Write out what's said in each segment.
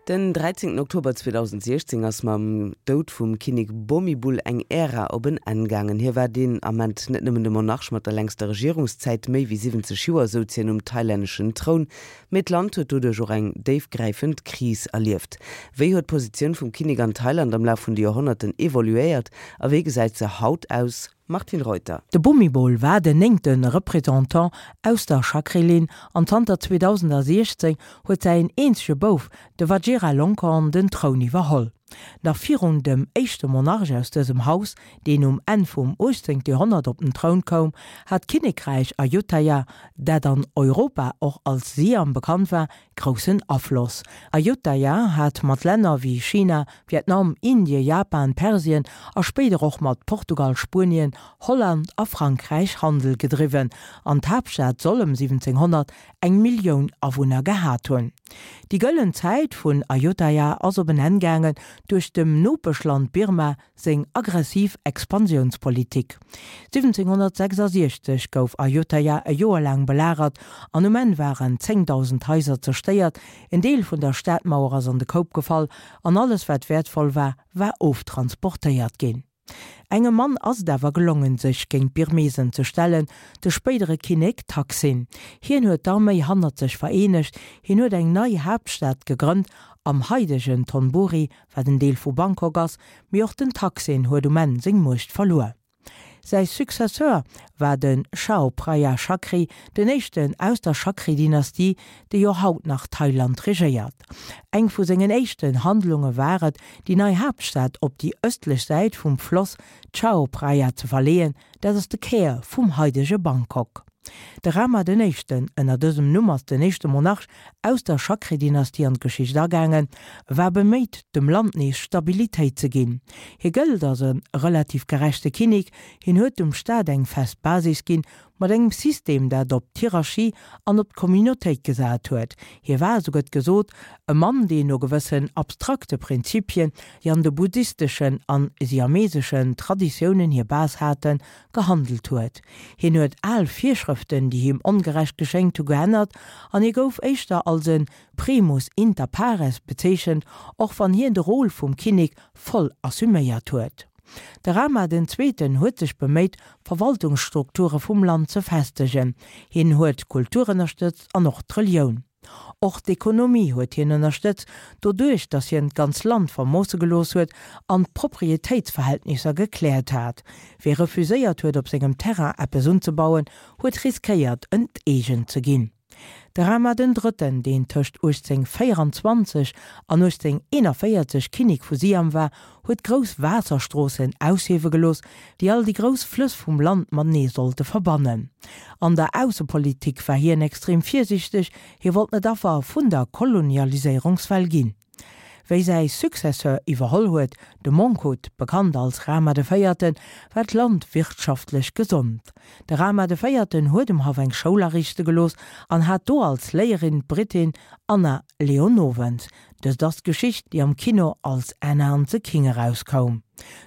Den 13 Oktober 2016 ass mam Doud vum Kinnek Bhumibol eng Ära op en Enn gaangen. Hie war deen Ament net nëmmen de Monarch mat der längster Regierungszäit, méi wéi 70 Joer souz hien um thailänneschen Troun, mee d'Land huet doduerch och eng déifgräifend Kris erlieft. Wéi huet d'Positioun vum Kinnek an Thailand am Laf vun de Joerhonnerten evoluéiert a wéi gesäit se haut aus? Martine Reuter. De Bhumibol war den néngte Représentant aus der Chakri-Linn an zanter 2016 huet säin eenzege Bouf, de Vajiralongkorn, den Troun iwwerholl. Nach virun dem éischte Monarch aus dësem Haus, deen um Enn vum 18. Joerhonnert op den Troun koum, hat d'Kinnekräich Ayutthaya, dat an Europa och als Siam bekannt war, groussen Afloss. Ayutthaya hat mat Länner wéi China, Vietnam, Indie, Japan, Persien a spéider och mat Portugal, Spuenien, Holland a Frankräich Handel gedriwwen an d'Haaptstad soll ëm 1700 eng Millioun Awunner gehat hunn. Déi gëllen Zäit vun Ayutthaya ass op en Enn gaangen duerch dem Nopeschland Birma seng aggressiv Expansiounspolitik. 1766 gouf Ayutthaya e Joer laang belagert an um Enn waren 10.000 Haiser zerstéiert, en Deel vun der Stadmauer ass an de Koup gefall an alles wat wäertvoll war, war oftransportéiert ginn. Engem Mann ass et awer gelongen sech géint d'Birmesen ze stellen, de spéidere Kinnek Taksin. Hien huet d'Arméi hannert sech vereenegt, hien huet eng nei Haaptstad gegrënnt am haidegen Thonburi, wat en Deel vu Bangkok ass, mee och den Thaksin huet um Enn seng Muecht verluer. Säi Successeur war de Chao Phraya Chakri, den éischten aus der Chakri-Dynastie, déi jo haut nach Thailand regéiert. Eng vu sengen éischten Handlunge war et, déi nei Haaptstad op déi ëstlech Säit vum Floss Chao Phraya ze verleeën, Dat ass de Kär vum haidege Bangkok. De Rama den Éischten, ënner dësem Numm ass den éischte Monarch aus der Chakri-Dynastie an d'Geschicht agaangen, war beméit, dem Land nees Stabilitéit ze ginn. Hie gëllt als e relativ gerechte Kinnek. Hien huet dem Staat eng fest Basis ginn, mat engem System, dat op d'Hierarchie an op d'Communautéit gesat huet. Hie war, esou gëtt gesot, e Mann, deen no gewëssen abstrakte Prinzipien, déi an de buddhisteschen an siameseschen Traditiounen hir Base haten, gehandelt huet. Hien huet al Virschrëften, déi him ongerecht geschéngt hu, geännert an hie gouf éischter als e primus inter pares bezeechent, och wann hien de Rôle vum Kinnek voll assuméiert huet. De Rama den Zweeten huet sech beméit, d'Verwaltungsstrukture vum Land ze festegen. Hien huet d'Kultur ënnerstëtzt an och d'Relioun. Och d'Ekonomie huet hien ënnerstëtzt, doduerch datt hien d'ganz Land vermoosse gelooss huet an d'Proprietéitsverhältnisser gekläert hat. Wie refuséiert huet op sengem Terrain eppes unzebauen, huet riskéiert enteegent ze ginn. De Rama den Drëtten, deen tëscht 1824 an 1841 Kinnek vu Siam war, huet grouss Waasserstroossen aushiewe gelooss, déi all déi grouss Flëss vum Land matenee sollte verbannen. An der Aussepolitik war hien extrem virsiichteg, hie wollt net Affer vun der Kolonialiséierungswell ginn. Wéi säi Successeur iwwerholl huet, de Mongkut, bekannt als Rama de Véierten, war d'Land wirtschaftlech gesond. De Rama de Véierten huet um Haff eng Schoul ariichte gelooss an hat do als Léierin d'Brittin Anna Leonowens. Dëst ass d'Geschicht, déi am Kino als Anna and the King erauskoum.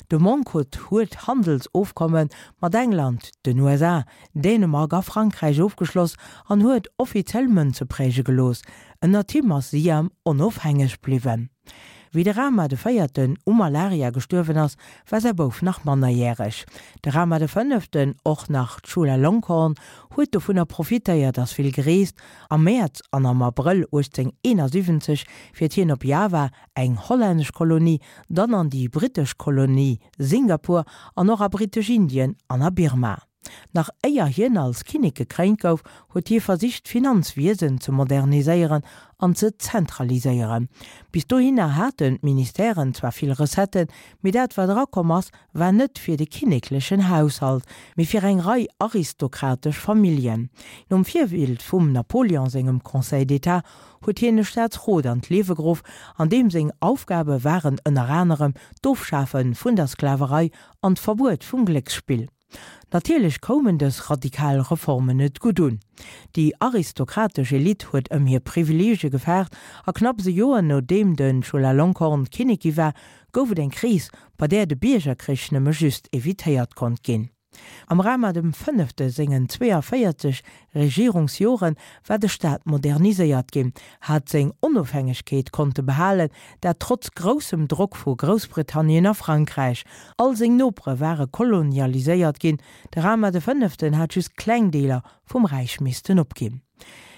De Mongkut huet Handelsofkomme mat England, den USA, Dänemark a Frankräich ofgeschloss an huet offiziell Mënze präge gelooss. Ënnert him ass Siam onofhängeg bliwwen. Wéi de Rama de Véierten u Malaria gestuerwen ass, war säi Bouf nach mannerjäreg. De Rama de Fënneften, och nach Chulalongkorn, huet dovunner profitéiert, ass vill gereest. Am Mäerz an am Abrëll 1871 fiert hien op Java, eng hollännesch Kolonie, dann an déi brittesch Kolonie Singapur an och a Brittesch-Indien an a Birma. Nach éier hien als Kinnek gekréint gouf, huet hie versicht d'Finanzwiesen ze moderniséieren an ze zentraliséieren. Bis dohinner haten d'Ministèren zwar vill Recetten, mee dat wat erakomm ass, war net fir de kinneklechen Haushalt, mee fir eng Rei aristokratesch Familljen. Nom Virbild vum Napoleon sengem Conseil d'État huet hien e Staatsrot an d'Liewe geruff, an deem seng Aufgabe waren ënner anerem d'Ofschafe vun der Sklaverei an d'Verbuet vum Glécksspill. Natierlech koumen dës radikal Reformen net gutt un. Déi aristokratesch Elite huet ëm hir Privileegie gefaart a knapps e Joer nodeem de Chulalongkorn Kinnek gi war, gouf et eng Kris, bei där de Biergerkrich nëmme just evitéiert konnt ginn. Am Rama dem Fënnefte sengen 42 Regierungsjore war de Staat moderniséiert ginn, hat seng Onofhängegkeet konnte behalen, dat trotz groussem Drock vu Groussbritannien a Frankräich. All seng Nopere ware kolonialiséiert ginn, de Rama de Fënneften hat just kleng Deeler vum Räich missten opginn.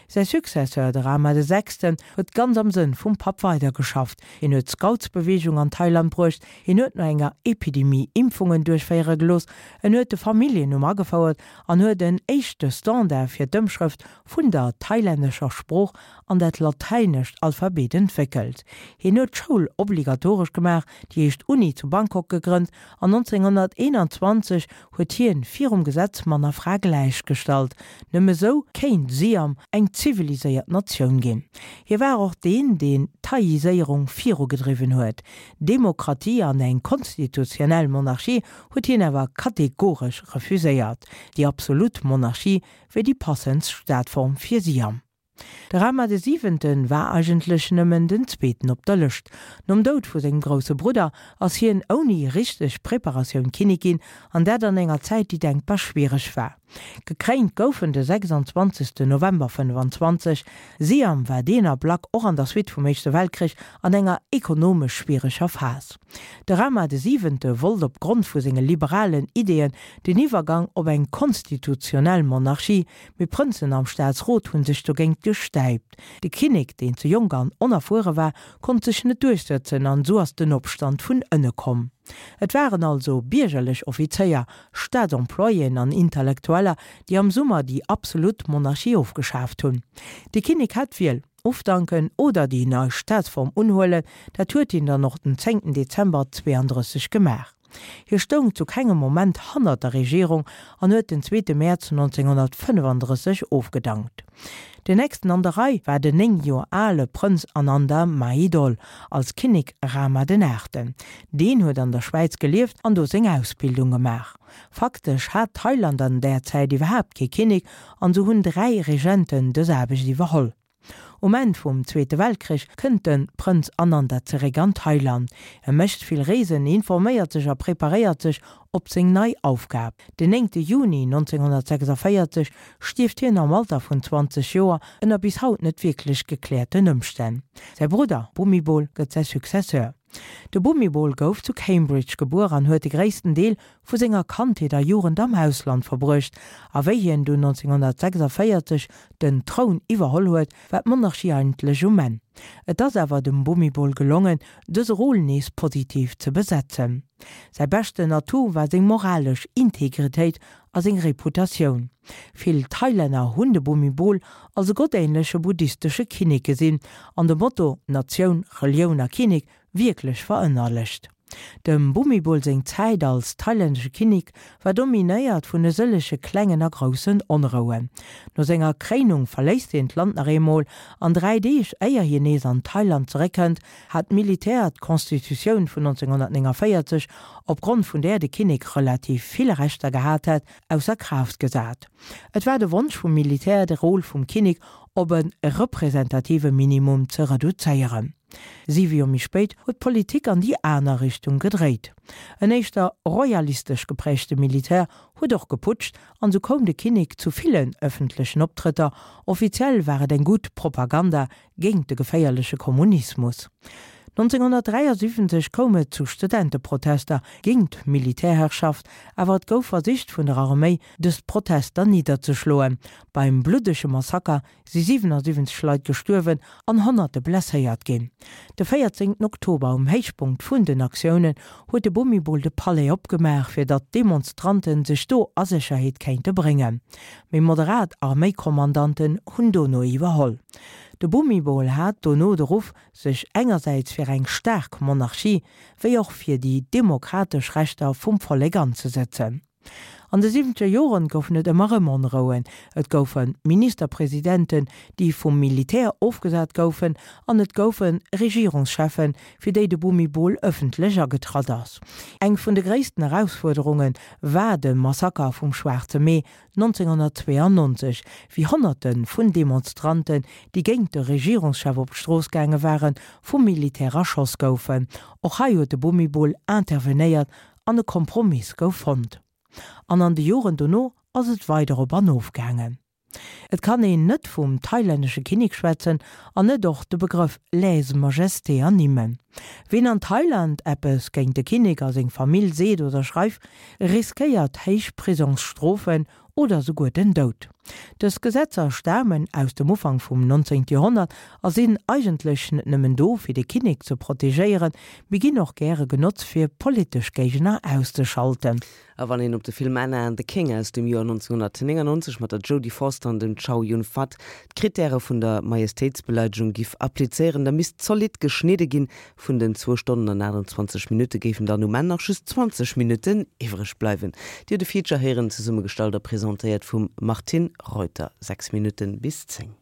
Säi Successeur, de Rama de Sechsten, huet ganz am Sënn vum Papp weidergeschafft. Hien huet d'Scoutsbeweegung an Thailand bruecht, hien huet no enger Epidemie Impfungen duerchféiere gelooss, en huet de Familljennumm agefouert an huet en éischte Standard fir d'Ëmschrëft vun der thailännescher Sprooch an dat latäinescht Alphabet entwéckelt. Hien huet d'Schoul obligatoresch gemaach, déi éischt Uni zu Bangkok gegrënnt an 1921 huet hien virum Gesetz Mann a Fra gläichgestallt. Nëmme sou kéint Siam eng ziviliséiert Natioun ginn. Hie war och deen, deen d'Thaiiséierung virugedriwwen huet. Demokratie an eng konstitutionell Monarchie huet hien awer kategoresch refuséiert. Déi absolut Monarchie wier déi passendst Staatform fir Siam. De Rama de Siwenten war eigentlech nëmmen den zweeten op der Lëscht. Nom Doud vu sengem grousse Brudder ass hien ouni richteg Preparatioun Kinnek ginn, an dat an enger Zäit déi denkbar schwiereg war. Gekréint gouf en de 26 November 25. Siam war deen Ablack och an der Suite vum Éischte Weltkrich an enger ekonomesch schwiereger Phas. De Rama de Siwente wollt op Grond vu senge liberalen Ideeën den Iwwergang op eng konstitutionell Monarchie, Mee Prënzen am Staatsrot hunn sech dogéint gestäipt. De Kinnek, deen ze jonk an onerfuere war, konnt sech net duerchsëtzen an esou ass den Opstand vun ënne komm. Et waren also biergerlech Offizéier, Staatsemployéen an Intellektueller, déi am Summer déi absolut Monarchie ofgeschaaft hunn. De Kinnek hat d'Wiel, ofdanken oder déi nei Staatsform unhuelen. Dat huet hien dann och den 10 Dezember 32 gemaach. Hie stoung zu kengem Moment hannert der Regierung an huet den zweete Mäerz 1935 ofgedankt. Den nächsten an der Rei war den 9 Joer ale Prënz Ananda Mahidol als Kinnek Rama den Aachten. Deen huet an der Schwäiz gelieft an do seng Ausbildung gemaach. Faktesch hat Thailand an där Zäit iwwerhaapt kee Kinnek an sou hunn 3 Regenten dës Aarbecht iwwerholl. Um Enn vum Zweete Weltkrich kënnt de Prënz Ananda zeréck an Thailand. E mécht vill Reesen, informéiert sech a preparéiert sech op seng nei Aufgab. Den 9 Juni 1946 stierft hien am Alter vun 20 Joer ënner bis haut net wierklech gekläerten Ëmstänn. Säi Brudder Bhumibol gëtt säi Successeur. De Bhumibol gouf zu Cambridge gebuer an huet de gréissten Deel vu senger Kandheet a Jugend am Ausland verbruecht. A wéi hien dunn 1946 den Troun iwwerholl huet, war d'Monarchie eigentlech um Enn. Et ass awer dem Bhumibol gelongen, dëse Rôle nees positiv ze besetzen. Säi beschten Atout war seng moralesch Integritéit a seng Reputatioun. Vill Thailänner hunn de Bhumibol als e gottähnleche buddhistesche Kinnek gesinn an de Motto Natioun, Relioun a Kinnek wierklech verënnerlecht. Dem Bhumibol seng Zäit als thailännesche Kinnek war dominéiert vun e sëllege klengen a groussen Onrouen. No senger Kréinung verléisst hien d'Land nach eemol an 3 Deeg éier hien nees an Thailand zeréckkënnt, hat d'Militär d'Constitutioun vun 1949, opgrond vun där de Kinnek relativ vill Rechter gehat hätt, ausser Kraaft gesat. Et war de Wonsch vum Militär, de Rôle vum Kinnek op e representative Minimum ze reduzéieren. Siwe Joer méi spéit huet d'Politik an déi aner Richtung gedréit. En éischter royalistesch geprägte Militär huet och geputscht an sou koum de Kinnek zu villen ëffentlechen Optrëtter. Offiziell war et eng gutt Propaganda géint de geféierleche Kommunismus. 1973 koum et zu Studenteprotester géint d'Militärherrschaft, awer et gouf versicht vun der Arméi dës Protester nidderzeschloen. Beim bluddege Massaker si 77 Leit gestuerwen an Honnerte blesséiert ginn. De 14 Oktober, um Héichpunkt vun den Aktiounen, huet de Bhumibol de Palais opgemaach, fir datt d'Demonstranten sech do a Sécherheet kéinte bréngen. Méi moderat Arméikommandanten hunn dono iwwerholl. De Bhumibol hat dono de Ruff, sech engersäits fir eng staark Monarchie, wéi och fir déi demokratesch Rechter vum Vollek anzesëtzen. An de siwwenzeger Joren goufen et ëmmer erëm Onrouen. Et goufe Ministerpresidenten, déi vum Militär ofgesat goufen, an et goufe Regierungscheffen, fir déi de Bhumibol ëffentlech agetratt ass. Eng vun de gréissten Erausfuerderunge war de Massaker vum Schwaarze Mee 1992, wéi Honnerte vun Demonstranten, déi géint de Regierungschef op d'Strooss gaange waren, vum Militär erschoss goufen. Och hei huet de Bhumibol intervenéiert an e Kompromiss gouf fonnt. An an de Joren dono ass et weider op an of gaangen. Et kann een net vum thailännesche Kinnek schwätzen an net och de Begrëff Lèse-majesté ernimmen. Ween an Thailand eppes géint de Kinnek a seng Famill seet oder schreift, riskéiert héich Prisongsstrofen oder souguer den Doud. Dës Gesetzer stamen aus dem Ufank vum 19. Joerhonnert a sinn eigentlech net nëmmen do fir de Kinnek ze protegéieren, mee ginn och gäre genotzt fir politesch Géigner auszeschalten. A wann een op de Film Anna and the King aus dem Joer 1999 mat der Jodie Foster an dem Chow Yun-Fat d'Krittäre vun der Majestéitsbeleidegung giff applizéieren, da misst zolidd geschnidde ginn. Vun den zwou Stonnen an 28 Minutte géifen dann um Enn nach just 20 Minutten iwwreg bleiwen. Dir hutt e Feature héieren, zesummegestallt a presentéiert vum Martine Reuter. 6 Minutten bis 10.